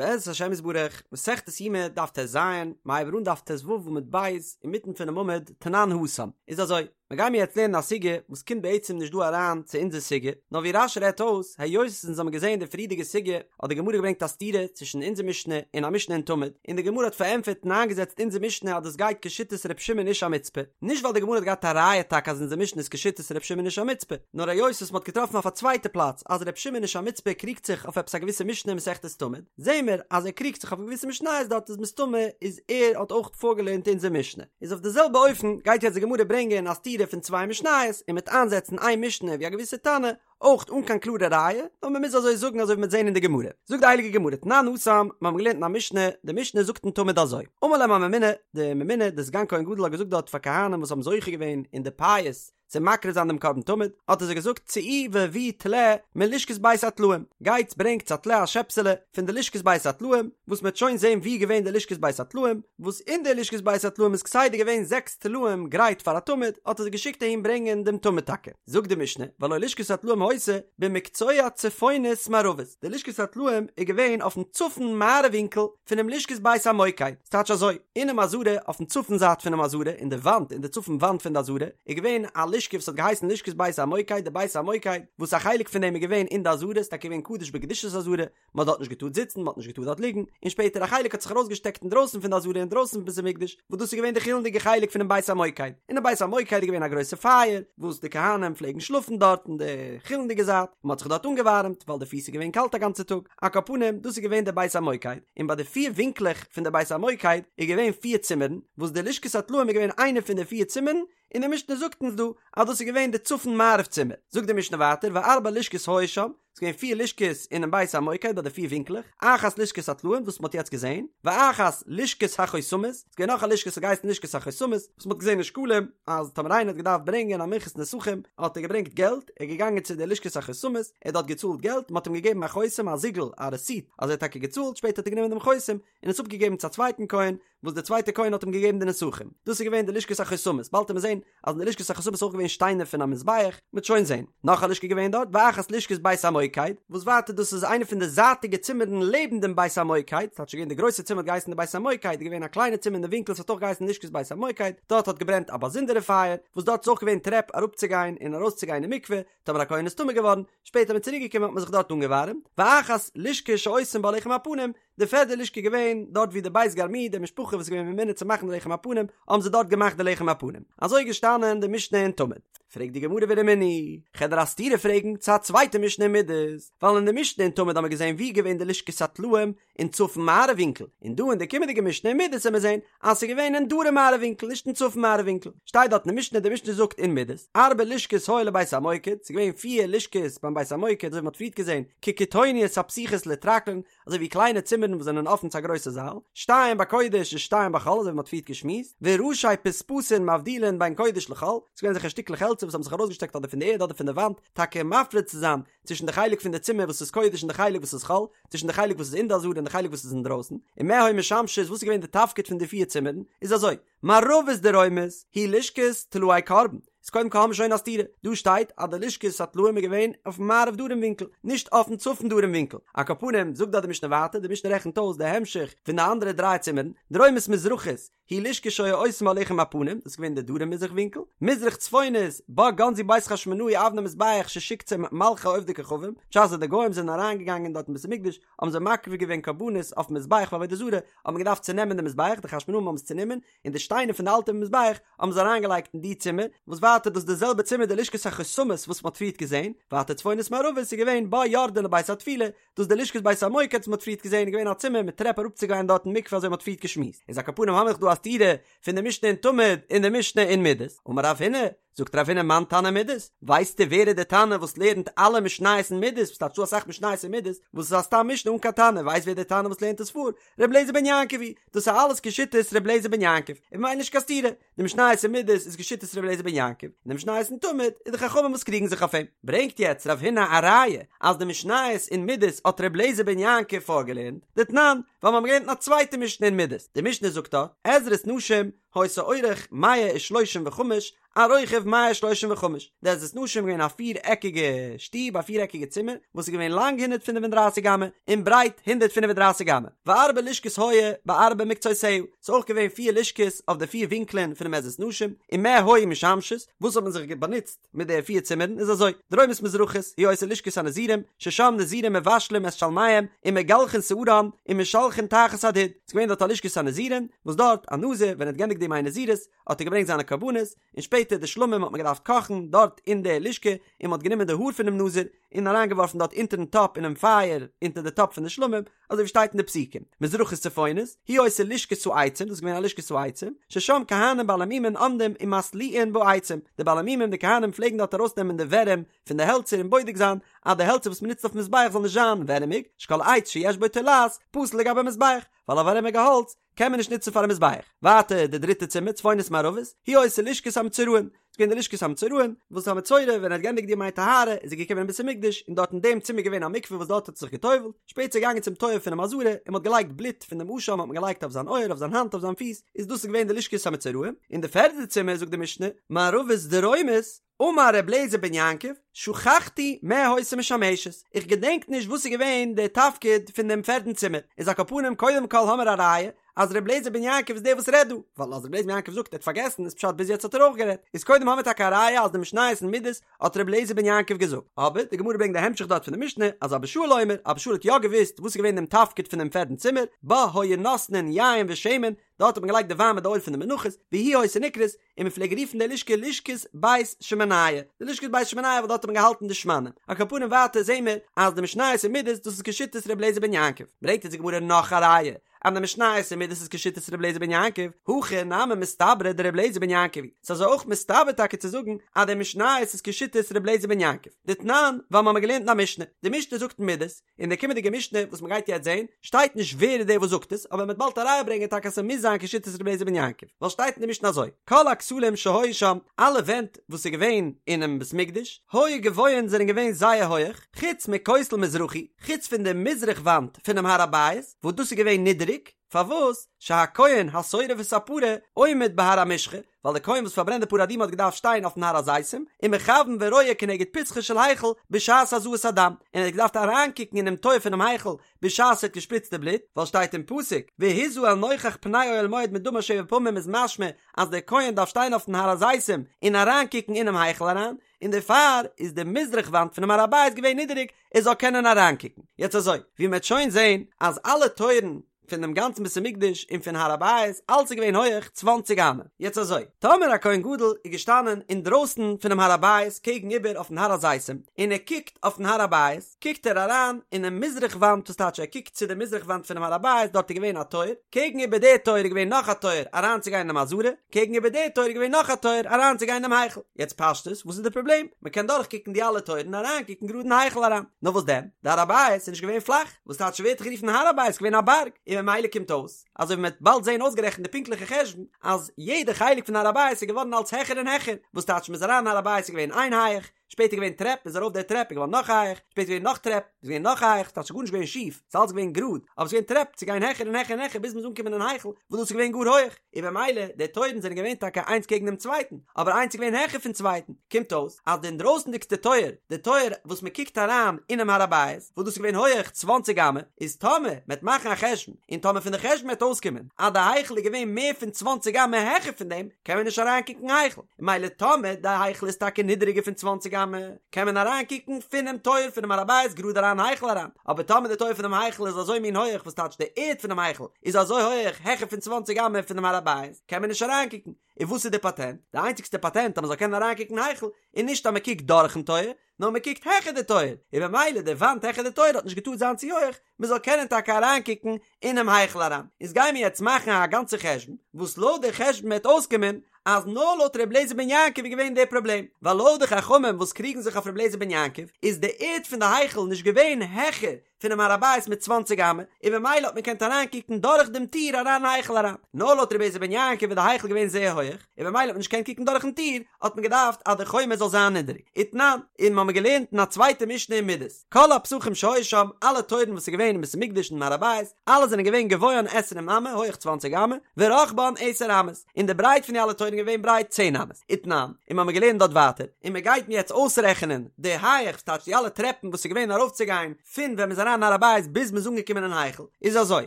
בעזרת השם יתברך, מסכת יומא דף טז, מ'הייבט אן דף טו עמוד ב', אינמיטן פונעם עמוד, תנן התם. איז אזוי, מ'גיימיר יעצט לערנען א סוגיא וואס קומט בעצם נישט דא אריין צו אונזער סוגיא, נאר ווי רש"י רעדט אויס, היות אונז האבן געזען די פריערדיגע סוגיא, האט די גמרא געברענגט א סתירה צווישן אונזער משנה און א משנה אין תמיד, און די גמרא האט פארענטפערט און איינגעזעצט אונזער משנה אז דאס גייט כשיטת ר' שמעון איש המצפה, נישט ווייל די גמרא האט געהאט א ראיה טאקע אז אונזער משנה איז כשיטת ר' שמעון איש המצפה, נאר היות וואס מ'האט געטראפן אויף א צווייטע פלאץ אז ר' שמעון איש המצפה קריגט זיך אויף עפעס א געוויסע משנה אין מסכת תמיד, זעהן מיר אז ער קריגט זיך אויף געוויסע משניות דארט איז מסתמא איז ער האט אויך פארגעלערנט אונזער משנה. איז אויף די זעלבע אופן גייט יעצט די גמרא ברענגען א סתירה פון צוויי משניות און מ'עט איינזעצן איין משנה ווי א געוויסע תנא, אויך אן קיין קלארע ראיה, נאר מען מוז אזוי זאגן אזוי ווי מ'וועט זען אין די גמרא. זאגט די הייליגע גמרא, תנן התם, מיר האבן געלערנט אין א משנה, די משנה זאגט אין תמיד אזוי, אמר להם הממונה, די ממונה, די סגן כהן גדול האט געזאגט דארט פאר כהנים וואס האבן זוכה געווען אין די פייס צו מקריב זיין דעם קרבן תמיד, האט ער זיי געזאגט, צאו והביאו טלה מלשכת בית הטלאים, גייטס ברענגטס א טלה א שעפסעלע פון די לשכת בית הטלאים, וואס מ'וועט שוין זען וואו איז געווען די לשכת בית הטלאים, וואס אין די לשכת בית הטלאים איז כסדר געווען זעקס טלאים גרייט פאר א תמיד, האט ער זיי געשיקט אהין ברענגען דעם תמיד טאקע. זאגט די משנה, והלא לשכת הטלאים היתה במקצוע צפונית מערבית, די לשכת הטלאים איז געווען אויפן צפון מערב ווינקל פונעם לשכת בית המוקד, ס'טייטש אזוי, אינעם עזרה, אויפן צפון זייט פונעם עזרה, אין די וואנט, אין די צפון וואנט פון די עזרה, איז געווען א לשכה וואס האט געהייסן לשכת בית המוקד, די בית המוקד, וואס א חלק פון דעם איז געווען אין די עזרה, ס'איז טאקע געווען קדוש בקדושת עזרה, מען האט דארט נישט געטארט זיצן, מען האט נישט געטארט דארט ליגן, און שפעטער א חלק האט זיך ארויסגעשטעקט אינדרויסן פון די עזרה אינדרויסן פון בית המקדש, וואס דאס איז געווען די חולין'דיגע חלק פונעם בית המוקד, אינעם בית המוקד איז געווען א גרויסע פייער, וואס די כהנים פלעגן שלאפן דארט אין די חולין'דיגע זייט, און מען האט זיך דארט אנגעווארעמט, ווייל די פיס איז געווען קאלט א גאנצע טאג, על כל פנים, דאס איז געווען דער בית המוקד, און ביי די פיר ווינקלעך פון דער בית המוקד איז געווען פיר צימערן, וואס די לשכת הטלאים איז געווען איינע פון די פיר צימערן, און די משנה זאגט אונז דא אז דאס איז געווען די צפון מערב צימער, זאגט די משנה ווייטער וארבע לשכות היו שם, ס'איז געווען פיר לשכות אינעם בית המוקד ביי די פיר ווינקלעך, אחת לשכת הטלאים וואס מ'האט יעצט געזען, ואחת לשכת החותמות, ס'איז געווען נאך א לשכה וואס האט געהייסן לשכת החותמות, וואס מ'האט געזען אין שקלים אז טאמער איינער האט געדארפט ברענגען א מנחת נסכים האט ער געברענגט געלט, ער איז געגאנגען צו די לשכת החותמות, ער האט דארט געצאלט געלט, מ'האט אים געגעבן א חותם א זיגל א רעסיט אז ער האט טאקע געצאלט, שפעטער האט ער גענומען דעם חותם און עס אפגעגעבן צו א צווייטן כהן, וואס דער צווייטער כהן האט אים געגעבן די נסכים, דאס איז געווען די לשכת החותמות, באלד וועט מען זען אז אין די לשכת החותמות איז אויך געווען שטיינער פון א מזבח, מ'וועט שוין זען. נאך א לשכה געווען דארט, ואחת לשכת בית המוקד, וואס ווייטער דאס איז איינע פון די זייטיגע צימערן לעבן דעם בית המוקד, ס'טייטש געווען די גרויסע צימער האט געהייסן די בית המוקד, איז געווען א קליינע צימער אין די ווינקל ס'האט אויך געהייסן לשכת בית המוקד, דארט האט געברענט א באזונדערע פייער, וואס דארט איז אויך געווען טרעפ אראפצוגיין און ארויסצוגיין אין מקווה, טאמער א כהן איז טמא געווארן, שפעטער איז מען צוריק געקומען האט מען זיך דארט אנגעווארעמט, ואחת לשכה שעושים בה לחם הפנים, די פערדע לשכה געווען דארט ווי די בית גרמו די משפחה וואס איז געווען ממונה צו מאכן די לחם הפנים האבן זיי דארט געמאכט די לחם הפנים אזוי איז געשטאנען די משנה אין תמיד פרעגט די גמרא ורמינהי כ'על דיר א סתירה פרעגן צו א צווייטע משנה אין מידות ווייל אין די משנה אין תמיד האבן מיר געזען ווי איז געווען די לשכת הטלאים אין צפון מערב ווינקל און דא אין די קומענדיגע משנה אין מידות וועלן מיר זען אז ס'איז געווען אין דרום מערב ווינקל נישט אין צפון מערב ווינקל שטייט דארט אין די משנה די משנה זאגט אין מידות ארבע לשכות היו לבית המוקד ס'איז געווען פיר לשכות ביים בית המוקד אזוי ווי מ'האט פריערט געזען כקיטוניות הפתוחות לטרקלין אזוי ווי קליינע צימערן וואס זענען אפן צו א גרויסע זאל, שתיים בקודש און שתיים בחול, אזוי ווי מ'האט פריערט געשמועסט, וראשי פספסין מבדילין בין קודש לחול, ס'איז געווען אזעלכע שטיקלעך העלצער וואס האבן זיך ארויסגעשטעקט אדער פון די ערד אדער פון די וואנט, טאקע מפריד צו זיין צווישן די חלק פון די צימער וואס איז קודש און די חלק וואס איז חול, צווישן די חלק וואס איז אין די עזרה און די חלק וואס איז אינדרויסן, ומה היו משמשות, וואס איז געווען די תפקיד פון די פיר צימערן, איז אזוי, מערבית דרומית היא לשכת טלאי קרבן, איז קודם כל האמיר שוין א סתירה, דא שטייט אז די לשכת הטלאים איז געווען אויפן מערב דרום ווינקל, נישט אויפן צפון דרום ווינקל, על כל פנים זאגט דארט די משנה ווייטער, די משנה רעכנט אויס די המשך פון די אנדערע דריי צימערן, דרומית מזרחית היא לשכה שהיו עושים בה לחם הפנים, דאס איז געווען די דרום מזרח ווינקל, מזרח צפונית בה גנזו בית חשמונאי אבני מזבח ששיקצום מלכי עובדי כוכבים, בשעת די גוים זענען אריינגעגאנגען דארט אין בית המקדש האבן זיי מקריב געווען קרבנות אויפן מזבח פאר עבודה זרה, האט מען געדארפט צונעמען די מזבח, די חשמונאים האבן עס צונומען, און די שטיינער פון די אלטע מזבח האבן זיי אריינגעלייגט אין די צימער, וואס ווייטער דאס איז די זעלבע צימער די לשכת החותמות וואס מען האט פריערט געזען, ווייטער צפונית מערבית איז געווען בה יורדין לבית הטבילה, דאס איז די לשכת בית המוקד וואס מען האט פריערט געזען איז געווען א צימער מיט טרעפ אראפצוגיין דארט אין מקווה אזוי מען האט פריערט געשמועסט, איז על כל פנים האמיר דא א סתירה פון די משנה אין תמיד און די משנה אין מידות, אמר רב הונא, זאגט רב הונא מאן תנא מידות, ווייסטו ווער איז די תנא וואס לערנט אלע משניות אין מידות, וואס טייטש ס'דא אסאך משניות אין מידות, וואס איז א סתם משנה אן קיין תנא, ווייסט ווער די תנא וואס לערנט עס פאר? ר' אליעזר בן יעקב היא, דאס איז אלעס כשיטת ר' אליעזר בן יעקב, און ממילא נישט קיין סתירה, די משניות אין מידות איז כשיטת ר' אליעזר בן יעקב, און די משניות אין תמיד איז די חכמים וואס קריגן זיך אויף אים. ברענגט יעצט רב הונא א ראיה אז די משניות אין מידות האט ר' אליעזר בן יעקב פארגעלערנט, דתנן, ווייל מיר האבן געלערנט אין א צווייטע משנה אין מידות, די משנה זאגט דארט, עזרת נשים, היתה אורך מאה ושלושים וחמש. על רוחב מאה שלושים וחמש, די עזרת נשים איז געווען א פיר עקיגע שטוב, א פיר עקיגע צימער, וואס איז געווען לאנג 135 אמה, און ברייט 135 אמה, וארבע לשכות היו בארבע מקצותיה, ס'איז אויך געווען פיר לשכות אויף די פיר ווינקלען פונעם עזרת נשים, ומה היו משמשות, וואס האט מען זיך באנוצט מיט די פיר צימערן איז אזוי, דרומית מזרחית היא היתה לשכת הנזירים, ששם נזירים מבשלים את שלמיהם, ומגלחין שערם, ומשלחין תחת הדוד, ס'איז געווען דארט א לשכת הנזירים, וואס דארט א נזיר ווען ער האט געענדיגט די ימי נזירות, האט ער געברענגט זיינע קרבנות, און שפעטער די שלמים האט מען געדארפט קאכן דארט אין די לשכה, און מען האט גענומען די האר פונעם נזיר, און אריינגעווארפן דארט אונטערן טאפ אינעם פייער, אונטער די טאפ פון די שלמים, אזוי ווי שטייט אין די פסוקים, מזרחית צפונית, היא היתה לשכת העצים, דאס איז געווען א לשכת העצים, ששם כהנים בעלי מומין עומדים ומתליעין בעצים, די בעלי מומים די כהנים פלעגן דארט ארויסנעמען די ווערים פון די העלצער און בודק זיין אז די העלצער וואס מען נוצט אויפן מזבח זאל נישט זיין ווערעמיג, שכל עץ שיש בו תולעת פסול לגבי מזבח, ווייל א ווערעמיגע האלץ קען מען נישט נוצן פארן מזבח. ווייטער די דריטע צימער צפונית מערבית, היא היתה לשכת המצורעים, ס'איז געווען די לשכת המצורעים, וואס א מצורע ווען ער האט געענדיגט די ימי טהרה איז ער געקומען אין בית המקדש און דארט אין דעם צימער געווען א מקווה וואס דארט האט ער זיך גע'טובל'ט, שפעטער איז ער געגאנגען צום טויער פונעם עזרה און מ'האט געלייגט בלוט פון דעם אשם האט מען געלייגט אויף זיין אויער אויף זיין האנט אויף זיין פיס, איז דאס איז געווען די לשכת המצורעים, און די פערדע צימער זאגט די משנה, מערבית דרומית, אמר ר' אליעזר בן יעקב, שכחתי מה היתה משמשת, איך געדענק נישט וואס איז געווען די תפקיד פון דעם פערטן צימער, איז על כל פנים קודם כל האמער א ראיה אז ר' אליעזר בן יעקב איז דער וואס רעדט דא, ווייל אז ר' אליעזר בן יעקב זאגט ער האט פארגעסן איז פשט ביז יעצט האט ער אויך גערעדט, איז קודם האמער טאקע א ראיה אז די משניות אין מידות האט ר' אליעזר בן יעקב געזאגט, אבער די גמרא ברענגט די המשך דארט פון די משנה אז אבא שאול אומר, אבא שאול האט יא געוואוסט וואס איז געווען דעם תפקיד פון דעם פערטן צימער, בה היו נותנין יין ושמן, דארט האט מען געלייגט די וויין מיט די אויל פון די מנחות, והיא היתה נקראת, און מען פלעג רופן די לשכה לשכת בית שמניה, די לשכת בית שמניה ווייל דארט האט מען געהאלטן די שמנים. על כל פנים ווייטער זעהן מיר אז די משניות אין מידות דאס איז כשיטת ר' אליעזר בן יעקב, ברענגט אונז די גמרא נאך א ראיה אז די משניות אין מידות איז כשיטת ר' אליעזר בן יעקב, הכי נמי מסתברא דר' אליעזר בן יעקב היא, ס'איז אזוי אויך מסתבר טאקע צו זאגן אז די משניות איז כשיטת ר' אליעזר בן יעקב, דתנן, ווייל מ'האמיר געלערנט אין א משנה, די משנה זאגט אין מידות, אין די קומענדיגע משנה וואס מ'גייט יעצט זעהן, שטייט נישט ווער איז דער וואס זאגט עס, אבער מ'וועט באלד א ראיה ברענגען טאקע אז ס'מוז זיין כשיטת ר' אליעזר בן יעקב, ווייל שטייט אין די משנה אזוי, כל הכתלים שהיו שם, אלע ווענט וואס איז געווען אינעם בית מקדש, היו גבוהין זענען געווען זייער הויעך, חוץ מכותל מזרחי, חוץ פון די מזרח וואנט פונעם הר הבית, וואס דאס איז געווען נידעריג, פארוואס? שהכהן השורף את הפרה עומד בהר המשחה, ווייל דער כהן וואס פארברענט די פרה אדומה האט געדארפט שטיין אויפן הר הזיתים, ומכוון ורואה כנגד פתחו של היכל בשעת הזאת הדם, און ער האט געדארפט אריינקוקן אינעם טויער פונעם היכל בשעת ער האט געשפריצט די בלוט, ווייל שטייט אין פסוק, והזה אל נוכח פני אוהל מועד מדמה שבע פעמים איז משמע אז דער כהן דארף שטיין אויפן הר הזיתים און אריינקוקן אינעם היכל אריין, און דערפאר איז די מזרח וואנט פונעם הר הבית געווען נידעריג ער זאל קענען אריינקוקן. יעצט אזוי, ווי מען וועט שוין זען אז אלע טויערן פון דעם גאנצן בית המקדש און פון הר הבית אלץ איז געווען הויעך צוואנציג אמה. יעצט אזוי, טאמער א כהן גדול איז געשטאנען אינדרויסן פונעם הר הבית קעגן איבער אויפן הר הזיתים און ער קוקט אויפן הר הבית, קוקט ער אריין אינעם מזרח וואנט וואס טייטש ער קוקט צו די מזרח וואנט פונעם הר הבית דארט איז געווען א טויער, קעגן איבער די טויער איז געווען נאך א טויער אריינצוגיין אינעם עזרה, קעגן איבער די טויער איז געווען נאך א טויער אריינצוגיין אינעם היכל. יעצט פשטות וואס איז די פראבלעם? מען קען דורכקוקן די אלע טויערן און אריינקוקן גראד אין היכל אריין. נאר וואס דען? די הר הבית איז נישט געווען פלאך, וואס טייטש ווערט גערופן הר הבית געווען א בארג, און ממילא קומט אויס, אזוי ווי מען וועט באלד זען אויסגערעכנט די פונקטליכע חשבון, אז יעדע חלק פון הר הבית איז געווארן אלץ העכער און העכער, וואס טייטש מען איז אריין אין הר הבית איז געווען איין הייך, שפעטער געווען טרעפ, מ'איז ארויף די טרעפ איז געווארן נאך הייך, שפעטער געווען נאך טרעפ, איז געווען נאך הייך, ס'טייטש גארנישט געווען שיף, ס'איז אלץ געווען גראד, אבער ס'איז געווען טרעפ צו גיין העכער און העכער און העכער ביז מ'איז אנגעקומען אין היכל, וואס דאס איז געווען גאר הויך, און במילא די טויערן זענען געווען טאקע איינס קעגן דעם צווייטן, אבער איינס איז געווען העכער פון צווייטן, קומט אויס אז די אינדרויסנדיגסטע טויער, די טויער וואס מ'קוקט אריין אינעם הר הבית, וואס דאס איז געווען הויעך צוואנציג אמה, איז טאמער מ'עט מאכן א חשבון, און טאמער פון די חשבון וועט אויסקומען אז די היכל איז געווען מער פון צוואנציג אמה העכער פון דעם, קען מען נישט אריינקוקן אין היכל. מילא טאמער די היכל איז טאקע נידעריגער פון צוואנציג אמה, קען מען אריין קוקן פונעם טויער פונעם הר הבית גראד אריין אין היכל אריין, אבער טאמער די טויער פונעם היכל איז אזוי מין הויעך וואס טייטש די ערד פונעם היכל איז אזוי הויעך העכער פון צוואנציג אמה פונעם הר הבית קען מען נישט אריין קוקן, און וואס איז די פאטענט? די איינציגסטע פאטענט אז מען זאל קענען אריין קוקן אין היכל איז נישט אז מען קוקט דורכן טויער, נאר מען קוקט העכער די טויער, און במילא די וואנט העכער די טויער האט נישט געטארט זיין צו הויעך, מען זאל קענען טאקע אריינקוקן אינעם היכל אריין. איז גייען מיר יעצט מאכן א גאנצע חשבון, וואס לויט די חשבון וועט אויסקומען אז נאר לויט ר' אליעזר בן יעקב איז געווען די פראבלעם, ווייל לויט די חכמים וואס קריגן זיך אויף ר' אליעזר בן יעקב, איז די ערד פון די היכל נישט געווען העכער. פונעם הר הבית מיט צוואנציג אמה, און במילא האט מען געקענט אריינקוקן דורך דעם טיר אריין אין היכל אריין. נאר לויט רבי אליעזר בן יעקב איז די היכל געווען זייער הויעך, און במילא האט מען נישט געקענט קוקן דורכן טיר, האט מען געדארפט אז די חומה זאל זיין נידעריג. ותנן, און מ'האמיר געלערנט אין א צווייטע משנה אין מידות, כל הפתחים שהיו שם, אלע טויערן וואס איז געווען אין בית המקדש און הר הבית, אלע זענען געווען גבוהן עשרים אמה, הויעך צוואנציג אמה, ורחבן עשר אמות, און די ברייט פון די אלע טויערן איז געווען ברייט צען אמות. ותנן, און מ'האמיר געלערנט דארט ווייטער, און מ'גייט מיר יעצט אויסרעכענען די הייעך, ס'טייטש די אלע טרעפן וואס איז געווען ארויפצוגיין פון ווען מ'איז אריין אין הר הבית ביז מ'איז אנגעקומען אין היכל, איז אזוי,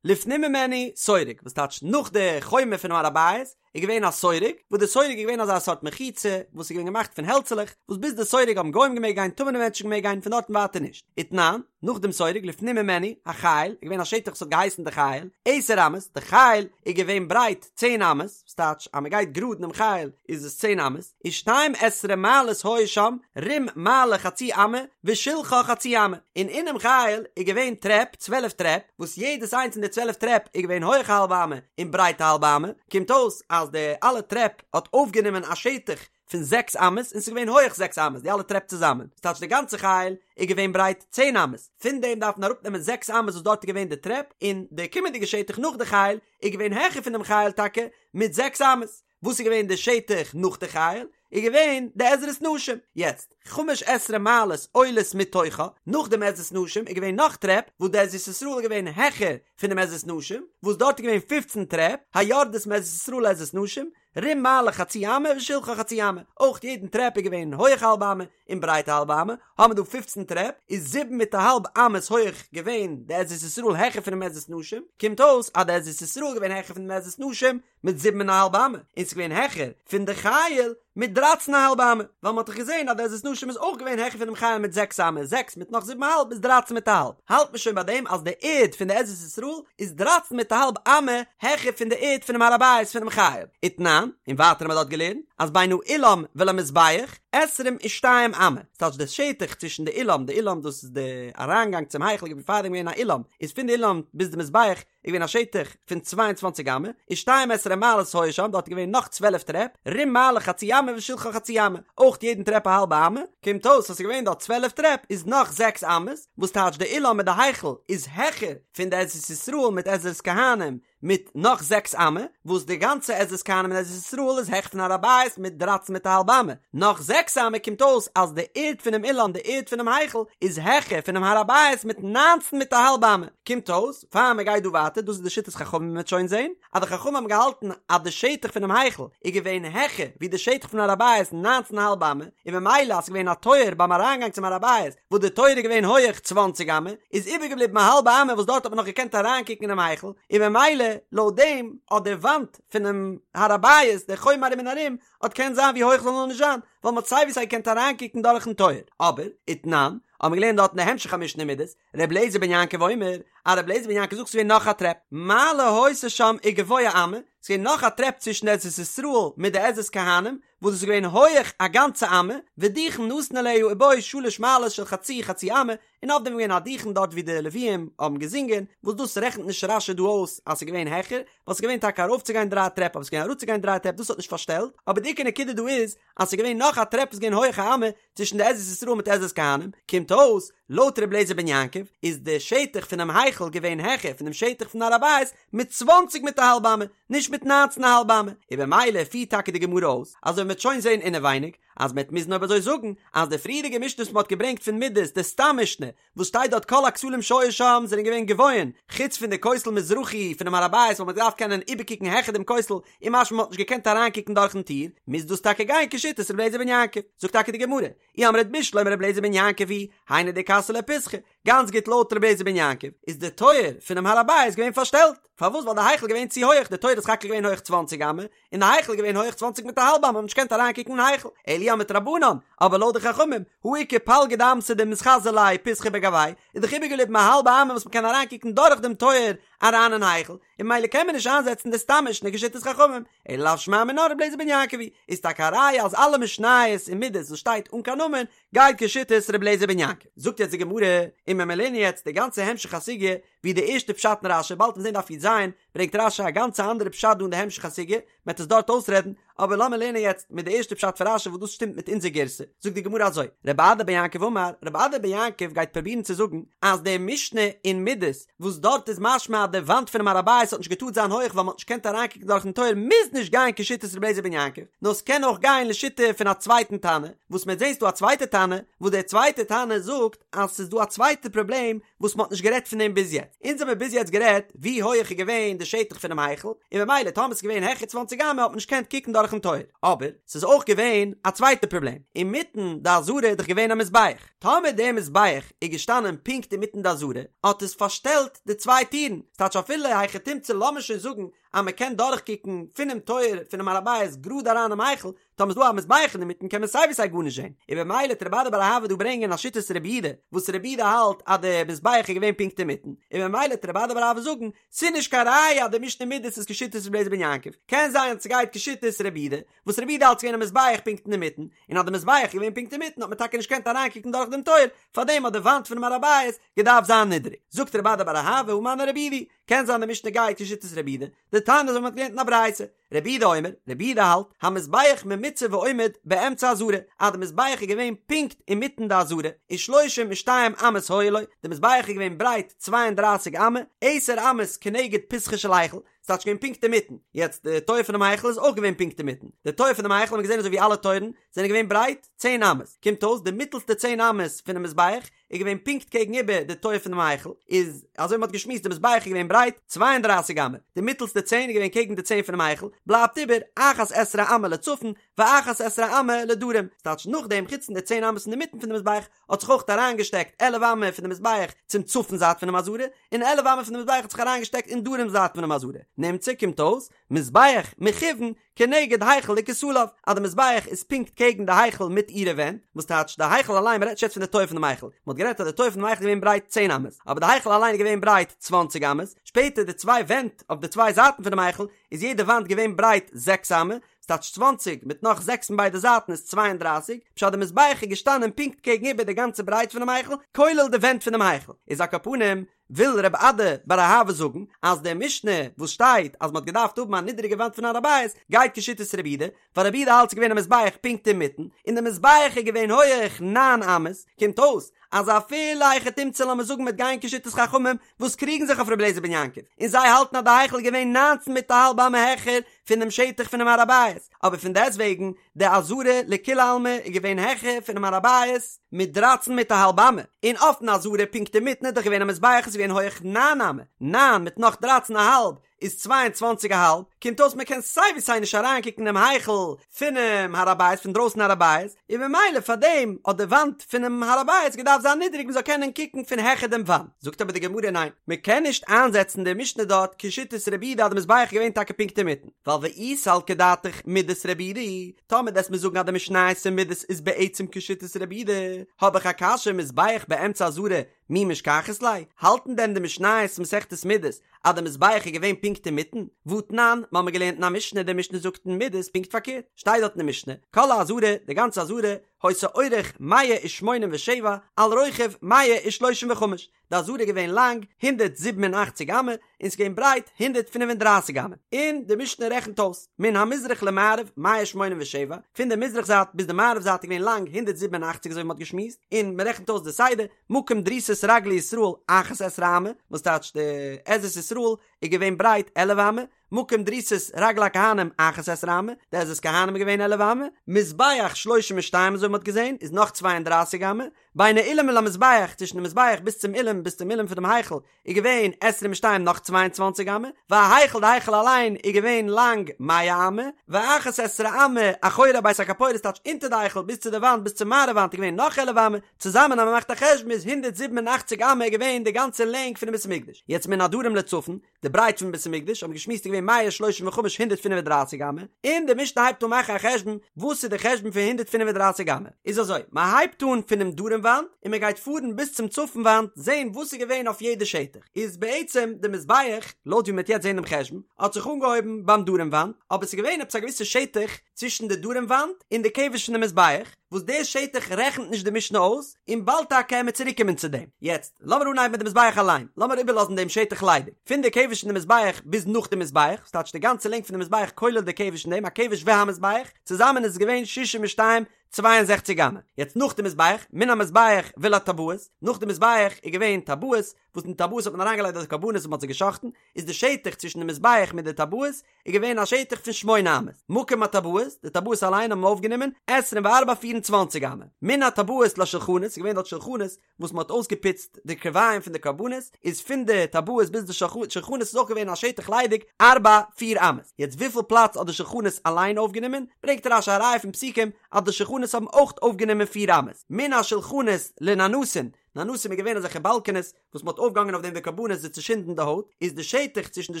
לפנים ממנו סורג, וואס טייטש נאך די חומה פונעם הר הבית, איז געווען א סורג, וואס די סורג איז געווען אזא סארט מחיצה, וואס איז געווען געמאכט פון העלצעלעך, וואס ביז די סורג האבן גוים געמעגט גיין, טמא'נע מענטשן געמעגט גיין, פון דארטן ווייטער נישט. ותנן, נאך דעם סורג, לפנים ממנו, החיל, איז געווען א שטח וואס האט געהייסן די חיל, עשר אמות, די חיל איז געווען ברייט צען אמות, וואס טייטש אז מען גייט גראד אינעם חיל איז עס צען אמות, ושתים עשרה מעלות היו שם, רום מעלה חצי אמה, ושלחה חצי אמה, און אינעם חיל איז געווען טרעפ, צוועלף טרעפ, וואס יעדעס איינס פון די צוועלף טרעפ איז געווען הויך א האלבע אמה און ברייט א האלבע אמה, קומט אויס אז די אלע טרעפ האט אויפגענומען א שטח פון זעקס אמות און ס'איז געווען הויך זעקס אמות די אלע טרעפ צוזאמען, ס'טייטש די גאנצע חיל איז געווען ברייט צען אמות, פון דעם דארף מען אראפנעמען זעקס אמות וואס דארט איז געווען די טרעפ, און די קומענדיגע שטח נאך די חיל איז געווען העכער פון דעם חיל טאקע מיט זעקס אמות. וואס איז געווען די שטח נאך די חיל? איז געווען די עזרת נשים. יעצט, חמש עשרה מעלות עולות מתוכה, נאך דעם עזרת נשים איז געווען נאך טרעפ, וואס די עזרת ישראל איז געווען העכער פונעם עזרת נשים, וואס דארט איז געווען פופצן טרעפ, היורדות מעזרת ישראל לעזרת נשים, רום מעלה חצי אמה ושלחה חצי אמה, אויך יעדן טרעפ איז געווען הויעך א האלבע אמה און ברייט א האלבע אמה, האבן מיר דא פופצן טרעפ, איז זיבן מיט א האלב אמות הויעך געווען די עזרת ישראל העכער פונעם עזרת נשים, קומט אויס אז די עזרת ישראל איז געווען העכער פונעם עזרת נשים מיט זיבן און א האלב אמה, און ס'איז געווען העכער פון די חיל מיט דרייצן א האלב אמה, ווייל מ'האט דאך געזען אז די עזרת נשים איז אויך געווען העכער פונעם חיל מיט זעקס אמה, זעקס מיט נאך זיבן א האלב איז דרייצן מיט א האלב, האלט מען שוין ביי דעם אז די ערד פון די עזרת ישראל איז דרייצן מיט א האלב אמה העכער פון די ערד פונעם הר הבית פונעם חיל, ותנן, און ווייטער האבן מיר דארט געלערנט אז בין האולם ולמזבח עשרים ושתיים אמה, ס'טייטש די שטח צווישן די אולם, די אולם דאס איז די אריינגאנג צום היכל איז פארדעם געווען א אולם, איז פון די אולם ביז די מזבח איז געווען א שטח פון צוויי און צוואַנציק אמה, ושתים עשרה מעלות היו שם, דארט איז געווען נאך צוועלף טרעפ, רום מעלה חצי אמה ושלחה חצי אמה, אויך יעדן טרעפ א האלבע אמה, קומט אויס אז ס'איז געווען דארט צוועלף טרעפ איז נאך זעקס אמות, וואס טייטש די אולם מיט די היכל איז העכער פון די עזרת ישראל מיט עזרת כהנים מיט נאך זעקס אמה, וואס די גאנצע עזרת כהנים און עזרת ישראל איז העכער פון הר הבית מיט דרייצן מיט א האלב אמה, נאך זעקס אמה קומט אויס אז די ערד פונעם אולם די ערד פונעם היכל איז העכער פונעם הר הבית מיט ניינצן מיט א האלב אמה, קומט אויס פאר מען גייט דא ווייטער, דאס איז די שיטת חכמים מען וועט שוין זען אז די חכמים האבן געהאלטן אז די שטח פונעם היכל איז געווען העכער ווי די שטח פון הר הבית ניינצן א האלב אמה, און ממילא אז ס'איז געווען א טויער ביים אריינגאנג צום הר הבית וואס די טויער איז געווען הויעך צוואנציג אמה, איז איבערגעבליבן א האלבע אמה וואס דארט האט מען נאך געקענט אריינקוקן אינעם היכל, און ממילא לויט דעם האט די וואנט פונעם הר הבית, די חומה ארום און ארום, האט קענט זיין ווי הויך זאל נאר נישט זיין, ווייל מ'האט סיי ווי סיי געקענט אריינקוקן דורכן טויער. אבער, ותנן, האבן מיר געלערנט דארט אין די המשך המשנה מידות, ר' אליעזר בן יעקב אומר, אז ר' אליעזר בן יעקב זאגט ס'איז געווען נאך א טרעפ, מעלה היתה שם וגבוה אמה, ס'איז געווען נאך א טרעפ צווישן די עזרת ישראל מיט די עזרת כהנים, וואס דאס איז געווען הויעך א גאנצע אמה, ודוכן נתון עליה ובו שלש מעלות של חצי חצי אמה, און אויף דעם איז געווען א דוכן דארט ווי די לוויים האבן געזינגען, וואס דאס רעכנט נישט רש"י דא אויס אז ס'איז געווען העכער, ווייל ס'איז געווען טאקע ארויפצוגיין דריי טרעפ אבער ס'איז געווען אראפצוגיין דריי טרעפ דאס האט נישט פארשטעלט, אבער די עיקר נקודה דא איז אז ס'איז געווען נאך א טרעפ וואס איז געווען הויעך א אמה צווישן די עזרת ישראל מיט עזרת כהנים, קומט אויס, לויט ר' אליעזר בן יעקב, איז די שטח פונעם היכל געווען העכער פונעם שטח פון הר הבית מיט צוואנציג מיט א האלב אמה, נישט מיט ניינצן א האלב אמה, און במילא פירט טאקע די גמרא אויס, אזוי מ'וועט שוין זען אינעווייניג, אז מ'וועט מוזן אויב אזוי זאגן, אז די פריערדיגע משנה וואס מ'האט געברענגט פון מידות, די סתם משנה, וואס שטייט דארט כל הכתלים שהיו שם זענען געווען גבוהין, חוץ פון די כותל מזרחי פונעם הר הבית וואס מ'האט געדארפט קענען איבערקוקן העכער דעם כותל, און משמע מ'האט נישט געקענט אריינקוקן דורכן טיר, מוז דאס טאקע גיין כשיטת ר' אליעזר בן יעקב. זאגט טאקע די גמרא, אי אמרת בשלמא ר' אליעזר בן יעקב היא, היינו דכסי ליה פיתחא, גאנץ גוט לויט ר' אליעזר בן יעקב איז די טויער פונעם הר הבית געווען פארשטעלט, פארוואס ווייל די היכל געווען צו הויעך, די טויער איז סך הכל געווען הויעך צוואנציג אמה, און די היכל איז געווען הויעך צוואנציג מיט א האלב אמה, מ'האט נישט געקענט אריינקוקן אין היכל, אלא אי אמרת רבנן, אבער לויט די חכמים, הא איכא פלגא דאמתא דמתחזי ליה פיתחא בגויה, איז דאך איבערגעבליבן א האלבע אמה וואס מ'קען אריינקוקן דורך דעם טויער אריין אין היכל, און ממילא קען מען נישט איינזעצן די סתם משנה כשיטת חכמים, אלא לאו שמע מינה ר' אליעזר בן יעקב היא, איז טאקע א ראיה אז אלע משניות אין מידות וואס שטייט אן קיין נאמען גייט כשיטת ר' אליעזר בן יעקב. זאגט יעצט די גמרא, און מען לערנען יעצט די גאנצע המשך הסוגיא. ווי די ערשטע פשט אין רשי, באלד וועט מען זען דף י"ז, ברענגט רשי א גאנצע אנדערע פשט דא אין די המשך הסוגיא, מען וועט עס דארט אויסרעדן, אבער לאמיר לערנען יעצט מיט די ערשטע פשט פון רשי וואס דאס שטימט מיט אונזער גירסא, זאגט די גמרא אזוי, רב אדא בר יעקב אמר, רב אדא בר יעקב גייט פרובירן צו זאגן אז די משנה אין מידות וואס דארט איז משמע אז די וואנט פונעם הר הבית האט נישט געטארט זיין הויך ווייל מען האט נישט געקענט אריינקוקן דורכן טויער מוז נישט גיין כשיטת רבי אליעזר בן יעקב, נאר ס'קען אויך גיין לשיטה פון א צווייטן תנא, וואס מען וועט זען ס'דא א צווייטע תנא, וואס דער צווייטער תנא זאגט אז ס'איז דא א צווייטע פראבלעם וואס מ'האט נישט גערעדט פון דעם ביז יעצט. אונז האמיר ביז יעצט גערעדט ווי הויעך איז געווען די שטח פונעם היכל, און ממילא טאמער ס'איז געווען העכער צוואנציג אמה האט מען נישט געקענט קוקן דורכן טויער. אבער ס'איז אויך געווען א צווייטע פראבלעם, אינמיטן די עזרה איז דאך געווען א מזבח. טאמער דער מזבח איז געשטאנען פונקט אינמיטן די עזרה, האט עס פארשטעלט די צוויי טירן. ס'טייטש אפילו היכי תמצא לאמיר שוין זאגן אז מ'קען דורכקוקן פונעם טויער פונעם הר הבית גראד אריין אינעם היכל, טאמער ס'דא א מזבח אינמיטן קען מען סיי ווי סיי גארנישט זען, און במילא וועט רב אדא בר אהבה דא ברענגען א שיטת רבי יהודה, וואס רבי יהודה האלט אז די מזבח איז געווען פונקט אינמיטן, און במילא וועט רב אדא בר אהבה זאגן, ס'איז נישט קיין ראיה אז די משנה מידות איז כשיטת רבי אליעזר בן יעקב, קען זיין אז ס'גייט כשיטת רבי יהודה, וואס רבי יהודה האלט ס'געווען א מזבח פונקט אינמיטן, און אז די מזבח איז געווען פונקט אינמיטן האט מען טאקע נישט געקענט אריינקוקן דורך דעם טויער, פארדעם האט די וואנט פונעם הר הבית געדארפט זיין נידעריג. זאגט רב אדא בר אהבה הא מני רבי יהודה, קען זיין די משנה גייט כשיטת רבי יהודה, דתניא אזוי ווי מ'האט געלערנט אין א ברייתא, רבי יהודה אומר, רבי יהודה האלט, המזבח ממוצע ועומד באמצע העזרה, אז די מזבח איז געווען פונקט אינמיטן די עזרה, ושלושים ושתיים אמות היו לו, די מזבח איז געווען ברייט צוויי און דרייסיג אמה, עשר אמות כנגד פתחו של היכל, ס'טייטש געווען פונקט אינמיטן, יעצט די טויער פונעם היכל איז אויך געווען פונקט אינמיטן, די טויער פונעם היכל האט מען געזען אזוי ווי אלע טויערן זענען געווען ברייט צען אמות, קומט אויס די מיטלסטע צען אמות פונעם מזבח איז געווען פונקט קעגן איבער די טויער פונעם היכל, איז אזוי מ'האט געשמועסט די מזבח איז געווען ברייט צוויי און דרײַסיק אמה, די מיטעלסטע צען איז געווען קעגן די צען פונעם היכל, בלייבט איבער אחת עשרה אמה לצפון ואחת עשרה אמה לדרום, ס'טייטש נאכדעם חוץ פון די צען אמות אינמיטן פון די מזבח האט זיך אויך אריינגעשטעקט עלף אמה פון די מזבח צום צפון זייט פונעם עזרה, און עלף אמה פון די מזבח האט זיך אריינגעשטעקט אין דרום זייט פונעם עזרה, נמצא קומט אויס מזבח מכוון כנגד היכל וכותליו, אז די מזבח איז פונקט קעגן די היכל מיט אירע ווענט, וואס טייטש די היכל אליין, מ'רעדט נישט יעצט פון די טויער פונעם היכל, מ'האט גערעדט אז די טויער פונעם היכל איז געווען ברייט צען אמות, אבער די היכל אליין איז געווען ברייט צוואנציג אמות, שפעטער די צוויי ווענט אויף די צוויי זייטן פונעם היכל איז יעדע וואנט געווען ברייט זעקס אמה, וואס טייטש צוואנציג מיט נאך זעקס פון ביידע זייטן איז צוויי און דרייסיג, פשט די מזבח איז געשטאנען פונקט קעגן איבער די גאנצע ברייט פונעם היכל, כולל די ווענט פונעם היכל, איז על כל פנים וויל רב אדא בר אהבה זאגן אז די משנה וואס שטייט אז מ'האט געדארפט האבן א נידעריגע וואנט פון הר הבית גייט כשיטת רבי יהודה, ווייל רבי יהודה האלט ס'איז געווען א מזבח פונקט אינמיטן, און די מזבח איז געווען הויעך נײַן אמות, קומט אויס אז אפילו היכי תמצא לאמיר זאגן מ'וועט גיין כשיטת חכמים וואס קריגן זיך אויף רבי אליעזר בן יעקב, און זיי האלטן אז די היכל איז געווען נײַנצן מיט א האלב אמה העכער פונעם שטח פונעם הר הבית, אבער פון דעסטוועגן די עזרה לכולי עלמא איז געווען העכער פונעם הר הבית מיט דרייצן מיט א האלב אמה, און אויפן עזרה פונקט אינמיטן איז דאך געווען א מזבח איז געווען הויעך ניין אמה, ניין מיט נאך דרייצן א האלב איז צוויי און צוואנציג א האלב, קומט אויס מען קען סיי ווי סיי נישט אריינקוקן אינעם היכל פונעם הר הבית פון דרויסן הר הבית, און ממילא פארדעם האט די וואנט פונעם הר הבית געדארפט זיין נידעריג מען זאל קענען קוקן פון העכער דעם וואנט, זאגט אבער די גמרא ניין מען קען נישט איינזעצן די משנה דארט כשיטת רבי יהודה אז די מזבח איז געווען טאקע פונקט אינמיטן. ווייל ואי סלקא דעתך מידות רבי יהודה, טאמער דו'סט מיר זאגן אז די משניות אין מידות איז בעצם כשיטת רבי יהודה, האב איך א קשיא מזבח באמצע עזרה מי משכחת ליה, האלטן דען די משניות מסכת מידות אז די מזבח איז געווען פונקט אינמיטן? והתנן, מ'האמיר געלערנט אין א משנה, די משנה זאגט אין מידות פונקט פארקערט, שטייט דארט אין די משנה, כל העזרה, די גאנצע עזרה, היתה אורך מאה ושמונים ושבע, על רוחב מאה ושלושים וחמש, די עזרה איז געווען לאנג הונדערט זיבן און אַכציק אמה און ס'איז געווען ברייט הונדערט פֿינף און דרײַסיק אמה, און די משנה רעכנט אויס, מן המזרח למערב מאה שמונים ושבע, פון די מזרח זייט ביז די מערב זייט איז געווען לאנג הונדערט זיבן און אַכציק אזוי ווי מ'האט געשמועסט, און מ'רעכנט אויס די סדר, מקום דריסת רגלי ישראל אחת עשרה אמה, וואס טייטש די עזרת ישראל איז געווען ברייט עלף אמה, מקום דריסת רגלי הכהנים אחת עשרה אמה, די עזרת כהנים איז געווען עלף אמה, מזבח שלושים ושתיים אזוי ווי מ'האט געזען איז נאך צוויי און דרײַסיק אמה, בין האולם ולמזבח צווישן די מזבח ביז צום אולם ביז צום אולם פונעם היכל איז געווען עשרים ושתיים נאך צוויי און צוואַנציק אמה, וההיכל די היכל אליין איז געווען לאנג מאה אמה, ואחת עשרה אמה אחורי בית הכפורת טייטש אונטער די היכל ביז צו די וואנט ביז צום מערב וואנט איז געווען נאך עלף אמה, צוזאמען אז מ'מאכט א חשבון איז הונדערט זיבן און אַכציק אמה איז געווען די גאנצע לענג פונעם בית המקדש, יעצט מן הדרום לצפון, די ברייט פון בית המקדש האבן געשמועסט איז געווען מאה שלושים וחמש הונדערט פינף און דרייסיג אמה, און די משנה הייבט אן מאכן א חשבון וואס איז די חשבון פון הונדערט פינף און דרייסיג אמה? אמה. איז אזוי, מען הייבט אן פונעם דרום וואנט און מען גייט פארן ביז צום צפון וואנט זען וואס איז געווען אויף יעדע שטח. איז בעצם די מזבח, לויט ווי מען וועט יעצט זען דעם חשבון, האט זיך אנגעהויבן ביים דרום וואנט, אבער ס'איז געווען עפעס א געוויסע שטח צווישן די דרום וואנט און די כבש פון די מזבח, וואס די שטח רעכנט נישט די משנה אויס, און באלד טאקע עמיר צוריקקומען צו דעם. יעצט, לאמיר אנהייבן מיט די מזבח אליין, לאמיר איבערלאזן דעם שטח ליידיג, פון די כבש פון די מזבח ביז נאך די מזבח, ס'טייטש די גאנצע לענג פון די מזבח כולל די כבש אין דעם, הכבש והמזבח, צוזאמען איז עס געווען שישים ושתיים, צוויי און זעכציק אמה. יעצט נאך די מזבח, מן המזבח ולטבעות, נאך די מזבח איז געווען טבעות, וואס אין די טבעות האט מען אריינגעלייגט די קרבנות וואס מען האט זיי גע'שחט'ן, איז די שטח צווישן די מזבח מיט די טבעות איז געווען א שטח פון שמונה אמות, מקום הטבעות, די טבעות אליין האבן אויפגענומען עשרים וארבע פיר און צוואנציג אמה, מן הטבעות לשולחנות, ס'איז געווען דארט שולחנות וואס מען האט אויסגעפוצט די קרביים פון די קרבנות, איז פון די טבעות ביז די שולחנות איז אויך געווען א שטח ליידיג ארבע פיר אמות, יעצט וויפיל פלאץ האט די שולחנות אליין אויפגענומען, ברענגט רש"י א ראיה פון פסוקים אז די שולחנות האבן אויך אויפגענומען פיר אמות, מן השולחנות לננסין, ננסים איז געווען אזעלכע באלקענעס וואס מ'האט אויפגעהאנגען אויף דעם די קרבנות זיי צו שינדן די הויט, איז די שטח צווישן די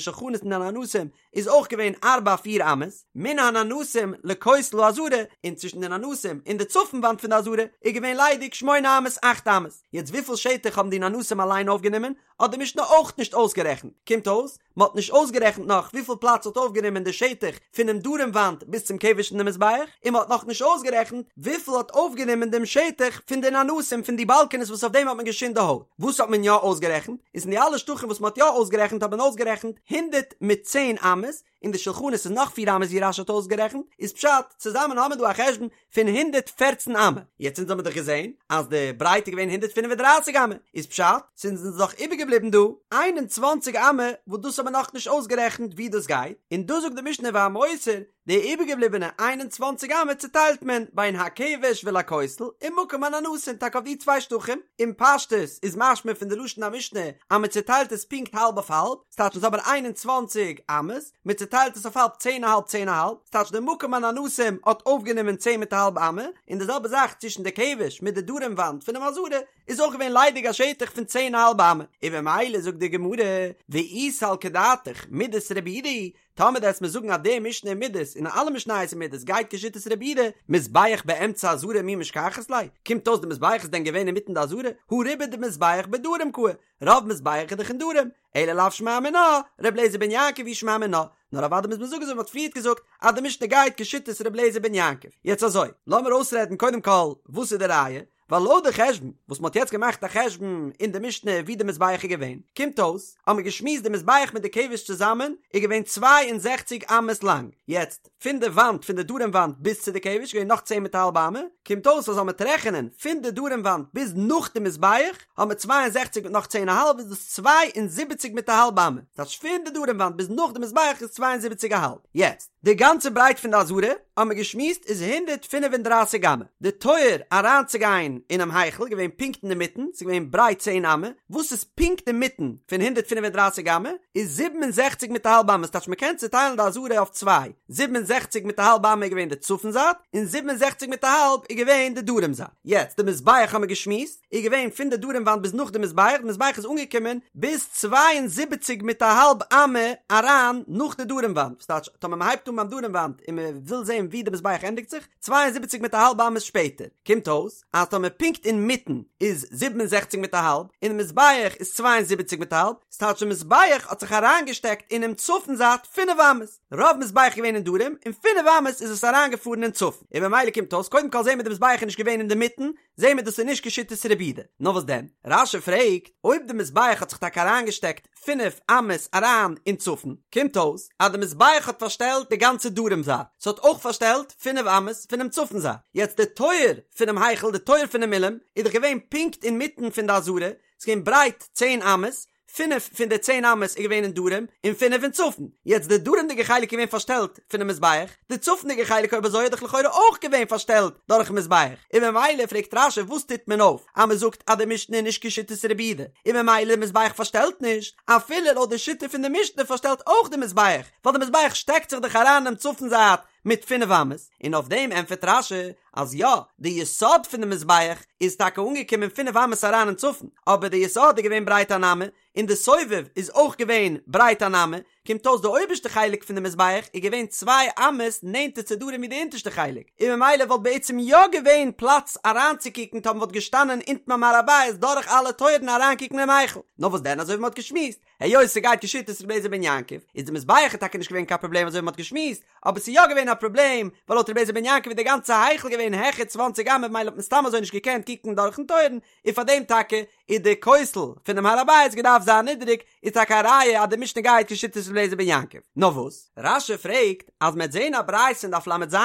שולחנות און די ננסים איז אויך געווען ארבע פיר אמות, מן הננסים לכותל העזרה, און צווישן די ננסים און די צפון וואנט פון די עזרה איז געווען ליידיג שמונה אמות אכט אמות, יעצט וויפיל שטח האבן די ננסים אליין אויפגענומען האט די משנה אויך נישט אויסגערעכנט, קומט אויס מען האט נישט אויסגערעכנט נאך וויפיל פלאץ האט אויפגענומען די שטח פונעם דרום וואנט ביז צום כבש פון די מזבח, און מען האט נאך נישט אויסגערעכנט וויפיל האט אויפגענומען דעם שטח פון די ננסים פון די באלקענעס וואס אויף דעם האט מען געשינדט די הויט. וואס האט מען יא אויסגערעכנט? איז אין די אלע שטחים וואס מען האט יא אויסגערעכנט האט מען אויסגערעכנט הונדערט מיט צען אמות, און די שולחנות איז נאך פיר אמות ווי רש"י האט אויסגערעכנט, איז פשט, צוזאמען האמער דא א חשבון פון 114 אמה, יעצט אונז האמיר דאך געזען אז די ברייט איז געווען 135 אמה, איז פשט, ס'איז אונז דאך איבערגעבליבן דא 21 אמה וואס דאס האמיר נאכנישט אויסגערעכנט ווי דאס גייט, און דא זאגט די משנה והמותר, די איבערגעבליבענע 21 אמה צוטיילט מען בין הכבש ולכותל ומקום הננסים טאקע אויף די צוויי שטחים, אין פשטות איז משמע פון די לשון המשנה אז מען צוטיילט עס פונקט האלב אויף האלב, ס'טייטש אונז האבן 21 אמות, מען צוטיילט עס אויף האלב צען א האלב צען א האלב, ס'טייטש די מקום הננסים האט אויפגענומען צען מיט א האלב אמה, און די זעלבע זאך צווישן די כבש מיט די דרום וואנט פונעם עזרה איז אויך געווען ליידיג א שטח פון צען א האלב אמה, און במילא זאגט די גמרא, ואי סלקא דעתך מידות רבי יהודה היא, טאמער דו וועסט מיר זאגן אז די משנה אין מידות און אלע משניות אין מידות גייט כשיטת רבי יהודה, מזבח באמצע עזרה מי משכחת ליה, קומט אויס די מזבח איז דען געווען אינמיטן די עזרה, הא רובא דמזבח בדרום קאי, רוב מזבח איז דאך אין דרום, אלא לאו שמע מינה, ר' אליעזר בן יעקב היא שמע מינה, נאר אוודאי מוז מען זאגן אזוי ווי מ'האט פריערט געזאגט אז די משנה גייט כשיטת ר' אליעזר בן יעקב. יעצט אזוי, לאמיר אויסרעדן קודם כל וואס איז די ראיה, ווייל לויט די חשבון וואס מ'האט יעצט געמאכט א חשבון אין די משנה ווי די מזבח איז געווען, קומט אויס אז מ'האט געשמועסט די מזבח מיט די כבש צוזאמען איז געווען 62 אמות לאנג, יעצט פון די וואנט פון די דרום וואנט ביז צו די כבש איז געווען נאך צען מיט א האלב אמה, קומט אויס אז אז מ'וועט רעכענען פון די דרום וואנט ביז נאך די מזבח האבן מיר 62 מיט נאך צען א האלב איז דאס 72 מיט א האלב אמה, ס'טייטש פון די דרום וואנט ביז נאך די מזבח איז 72 א האלב, יעצט די גאנצע ברייט פון די עזרה האבן מיר געשמועסט איז 135 אמה, די טויער אריינצוגיין אינעם היכל איז געווען פונקט אינמיטן, ס'איז געווען ברייט צען אמה, וואס איז פונקט אינמיטן פון 135 אמה איז 67 מיט א האלב אמה, ס'טייטש מ'קען צוטיילן די עזרה אויף צוויי, 67 מיט א האלב אמה איז געווען די צפון זייט, און 67 מיט א האלב איז געווען די דרום זייט. יעצט די מזבח האבן מיר געשמועסט איז געווען פון די דרום וואנט ביז נאך די מזבח, די מזבח איז אנגעקומען ביז 72 מיט א האלב אמה אריין נאך די דרום וואנט, וואס טייטש טאמער מ'הייבט אן ביים דרום וואנט און מ'וויל זען ווי די מזבח ענדיגט זיך, 72 מיט א האלב אמות שפעטער, קומט אויס אז טאמער פונקט אינמיטן איז 67 מיט א האלב, און די מזבח איז 72 מיט א האלב, ס'טייטש די מזבח האט זיך אריינגעשטעקט אינעם צפון זייט פינף אמות, רוב מזבח איז געווען אין דרום, און פינף אמות איז עס אריינגעפארן אין צפון, און במילא קומט אויס קודם כל זעהן מיר די מזבח איז נישט געווען אינדערמיטן, זעהן מיר דאס איז נישט כשיטת רבי יהודה, נאר וואס דען? רש"י פרעגט, אויב די מזבח האט זיך טאקע אריינגעשטעקט פינף אמות אריין אין צפון, קומט אויס אז די מזבח האט פארשטעלט די גאנצע דרום זייט, ס'האט אויך פארשטעלט פינף אמות פונעם צפון זייט, יעצט די טויער פונעם היכל, די טויער פונעם אולם, איז דאך געווען פונקט אינמיטן פון די עזרה, ס'איז געווען ברייט צען אמות, פינף פון די צען אמות איז געווען אין דרום, און פינף אין צפון. יעצט די דרומ'דיגע חלק איז געווען פארשטעלט פונעם מזבח, די צפונ'דיגע חלק אויב אזוי איז דאך לכאורה אויך געווען פארשטעלט דורכ'ן מזבח, און ממילא פרעגט רש"י וואס טוט מען אויף אז מען זאגט אז די משנה איז נישט כשיטת רבי יהודה, און ממילא די מזבח פארשטעלט נישט, אפילו לויט די שיטה פון די משנה פארשטעלט אויך די מזבח, ווייל די מזבח שטעקט זיך דאך אריין אינעם צפון זייט מיט פינף אמות, און אויף דעם ענטפערט רש"י. אז יא, די יסוד פון די מזבח איז טאקע אנגעקומען פינף אמות אריין אין צפון, אבער די יסוד איז געווען ברייט אן אמה, און די סובב איז אויך געווען ברייט אן אמה, קומט אויס די אויבערשטע חלק פון די מזבח איז געווען צוויי אמות נענטער צו דרום ווי די אונטערשטע חלק, און ממילא וואלט בעצם יא געווען פלאץ אריינצוקוקן טאמער מ'וואלט געשטאנען אונטן ביים הר הבית דורך אלע טויערן אריינקוקן אינעם היכל. נאר וואס דען אזוי ווי מ'האט געשמועסט, היות ס'גייט כשיטת רבי אליעזר בן יעקב, איז די מזבח איז טאקע נישט געווען קיין פראבלעם אזוי ווי מ'האט געשמועסט, אבער ס'איז יא געווען א פראבלעם, ווייל לויט רבי אליעזר בן יעקב איז די גאנצע היכל געווען העכער צוואנציג אמה ממילא האט מען סתם אזוי נישט געקענט קוקן דורכן טויערן, און פאר דעם טאקע איז די כותל פונעם הר הבית געדארפט זיין נידעריג, איז טאקע א ראיה אז די משנה גייט כשיטת רבי אליעזר בן יעקב. נאר וואס? רש"י פרעגט אז מ'עט זעהן א ברייתא אין דף ל"ז,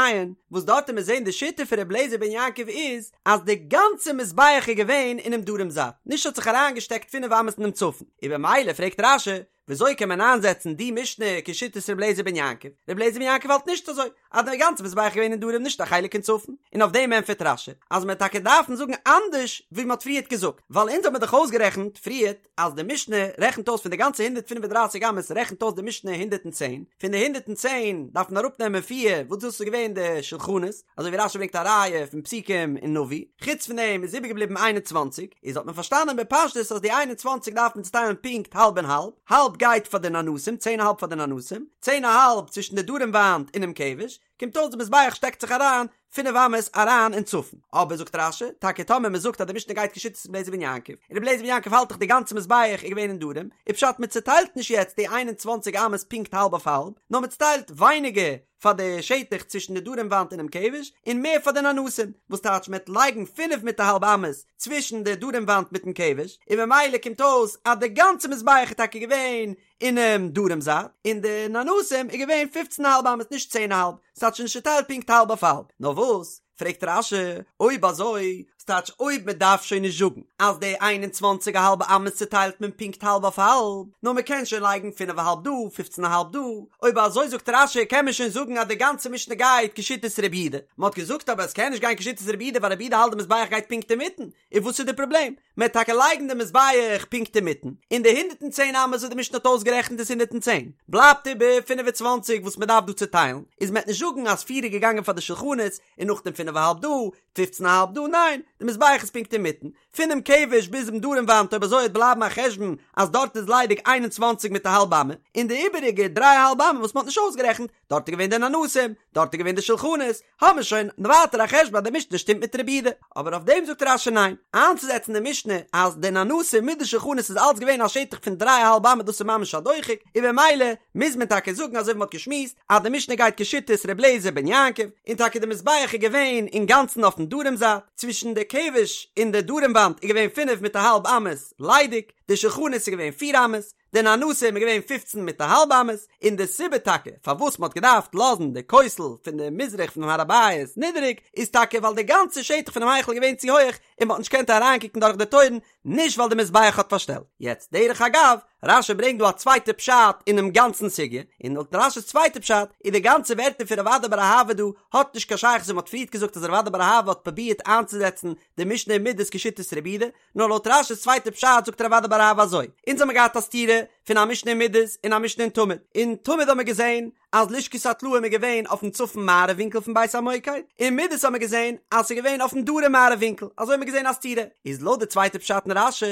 וואס דארט וועט מען זעהן די שיטה פון רבי אליעזר בן יעקב איז אז די גאנצע מזבח איז געווען אינעם דרום זייט, נישט האט זיך אריינגעשטעקט פינף אמות אינעם צפון, און במילא פרעגט רש"י, וויאזוי קען מען איינזעצן די משנה כשיטת רבי אליעזר בן יעקב? רבי אליעזר בן יעקב האלט נישט אזוי, אז די גאנצע מזבח איז געווען אין דרום נישט א חלק אין צפון, און אויף דעם ענטפערט רש"י אז מען וועט טאקע דארפן זאגן אנדערש ווי מען האט פריערט געזאגט, ווייל אונז האט מען דאך אויסגערעכנט פריערט אז די משנה רעכנט אויס פון די גאנצע 135 אמות רעכנט אויס די משנה 110, פון די 110 דארף מען אראפנעמען פיר וואס דאס איז געווען די שולחנות, אזוי ווי רש"י ברענגט א ראיה פון פסוקים אין נביא, חוץ פון דעם איז איבערגעבליבן 21, איז האט מען פארשטאנען בפשטות אז די 21 דארף מען צוטיילן פונקט האלב און האלב, האלב גייט פאר די ננסים, צען א האלב פאר די ננסים, צען א האלב צווישן די דרום וואנט און דעם כבש, קומט אויס די מזבח שטעקט זיך אריין פינף אמות אריין אין צפון. אבער זאגט רש"י, טאקע טאמער מען זאגט אז די משנה גייט כשיטת רבי אליעזר בן יעקב, און רבי אליעזר בן יעקב האלט דאך די גאנצע מזבח איז געווען אין דרום, איז פשט מען צוטיילט נישט יעצט די 21 אמות פונקט האלב אויף האלב, נאר מען צוטיילט ווייניגער פאר די שטח צווישן די דרום וואנט און דעם כבש, און מער פאר די ננסים, וואס טייטש מען וועט לייגן פינף מיט א האלב אמות צווישן די דרום וואנט מיטן כבש, און ממילא קומט אויס אז די גאנצע מזבח איז טאקע געווען אינעם דרום זייט, און די ננסים איז געווען פופצן א האלב אמות נישט צען א האלב, ס'טייטש נישט צוטיילט פונקט האלב אויף האלב, נאר וואס? פרעגט רש"י, אויב אזוי, ס'טייטש אויב מען דארף שוין נישט זאגן אז די איין און צוואנציג א האלבע אמות צוטיילט מען פונקט האלב אויף האלב, נאר מען קען שוין לייגן פינף א האלב דא, פופצן א האלב דא, אויב אזוי זאגט רש"י קען מען שוין זאגן אז די גאנצע משנה גייט כשיטת רבי יהודה, מען האט געזאגט אבער עס קען נישט גיין כשיטת רבי יהודה ווייל רבי יהודה האלט די מזבח גייט פונקט אינמיטן, און וואס איז די פראבלעם? מען וועט טאקע לייגן די מזבח פונקט אינמיטן, און די 110 אמות וואס די משנה האט אויסגערעכנט איז 110, בלייבט איבער 25 וואס מען דארף דא צוטיילן, איז מען וועט נישט זאגן אז פיר איז געגאנגען פאר די שולחנות, און נאכדעם פינף א האלב דא, פופצן א האלב דא, ניין, די מזבח איז פונקט אינמיטן, פונעם כבש ביז דעם דרום וואנט אויב אזוי וועט בלייבן א חשבון אז דארט איז ליידיג 21 מיט א האלב אמה, און די איבעריגע דריי א האלב אמה וואס מען האט נישט אויסגערעכנט, דארט איז געווען די ננסים, דארט איז געווען די שולחנות, האבן מיר שוין ווייטער א חשבון אז די משנה שטימט מיט רבי יהודה. אבער אויף דעם זאגט רש"י ניין, איינצוזעצן די משנה אז די ננסים מיט די שולחנות איז אלץ געווען א שטח פון דריי א האלב אמה דאס איז ממש א דוחק, און במילא מוז מען טאקע זאגן אזוי ווי מ'האט געשמועסט אז די משנה גייט כשיטת ר' אליעזר בן יעקב, און טאקע די מזבח איז געווען אינגאנצן אויפן דרום זייט, צווישן די כבש און די דרום וואנט איז געווען פינף מיט א האלב אמות ליידיג, די שולחנות איז געווען פיר אמות, די ננסים איז געווען פופצן מיט א האלב אמות, און די סיבה טאקע פארוואס מ'האט געדארפט לאזן די כותל פון די מזרח פונעם הר הבית נידעריג, איז טאקע ווייל די גאנצע שטח פונעם היכל איז געווען צו הויעך און מ'האט נישט געקענט אריינקוקן דורך די טויערן, נישט ווייל די מזבח האט פארשטעלט. יעצט דרך אגב, רש"י ברענגט דא א צווייטע פשט אינעם גאנצן סוגיא, און לויט רש"י'ס צווייטע פשט איז די גאנצע ווערטער פון רב אדא בר אהבה דא האט נישט קיין שייכות ווי מ'האט פריערט געזאגט אז רב אדא בר אהבה האט פרובירט איינצוזעצן די משנה אין מידות כשיטת רבי יהודה, נאר לויט רש"י'ס צווייטע פשט זאגט רב אדא בר אהבה אזוי, אונז האמיר געהאט א סתירה פון א משנה אין מידות און א משנה אין תמיד, אין תמיד האמיר געזען אז לשכת הטלאים איז געווען אויפן צפון מערב ווינקל פון בית המוקד, אין מידות האמיר געזען אז ס'איז געווען אויפן דרום מערב ווינקל, אזוי האמיר געזען א סתירה, איז לויט די צווייטע פשט אין רש"י,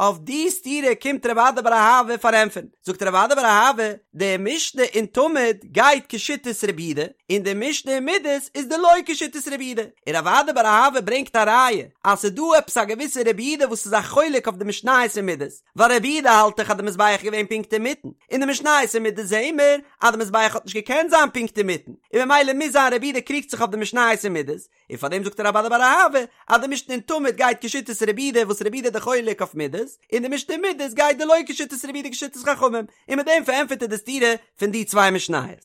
אויף די סתירה קומט רב אדא בר אהבה פארענטפערן, זאגט רב אדא בר אהבה, די משנה אין תמיד גייט כשיטת רבי יהודה, און די משנה אין מידות איז דלא כשיטת רבי יהודה, און רב אדא בר אהבה ברענגט א ראיה אז ס'איז דא עפעס א געוויסע רבי יהודה וואס איז א חולק אויף די משניות אין מידות, ווייל רבי יהודה האלט דאך אז די מזבח איז געווען פונקט אינמיטן, אין די משניות אין מידות זעהן מיר אז די מזבח האט נישט געקענט זיין פונקט אינמיטן, און ממילא מוז זיין רבי יהודה קריגט זיך אויף די משניות אין מידות, און פאר דעם זאגט רב אדא בר אהבה אז די משנה אין תמיד גייט כשיטת רבי יהודה וואס רבי יהודה איז די חולק אויף מידות, און די משנה אין מידות גייט דלא כשיטת רבי יהודה כשיטת חכמים, און מיט דעם פארענטפערט ער די סתירה פון די צוויי משניות.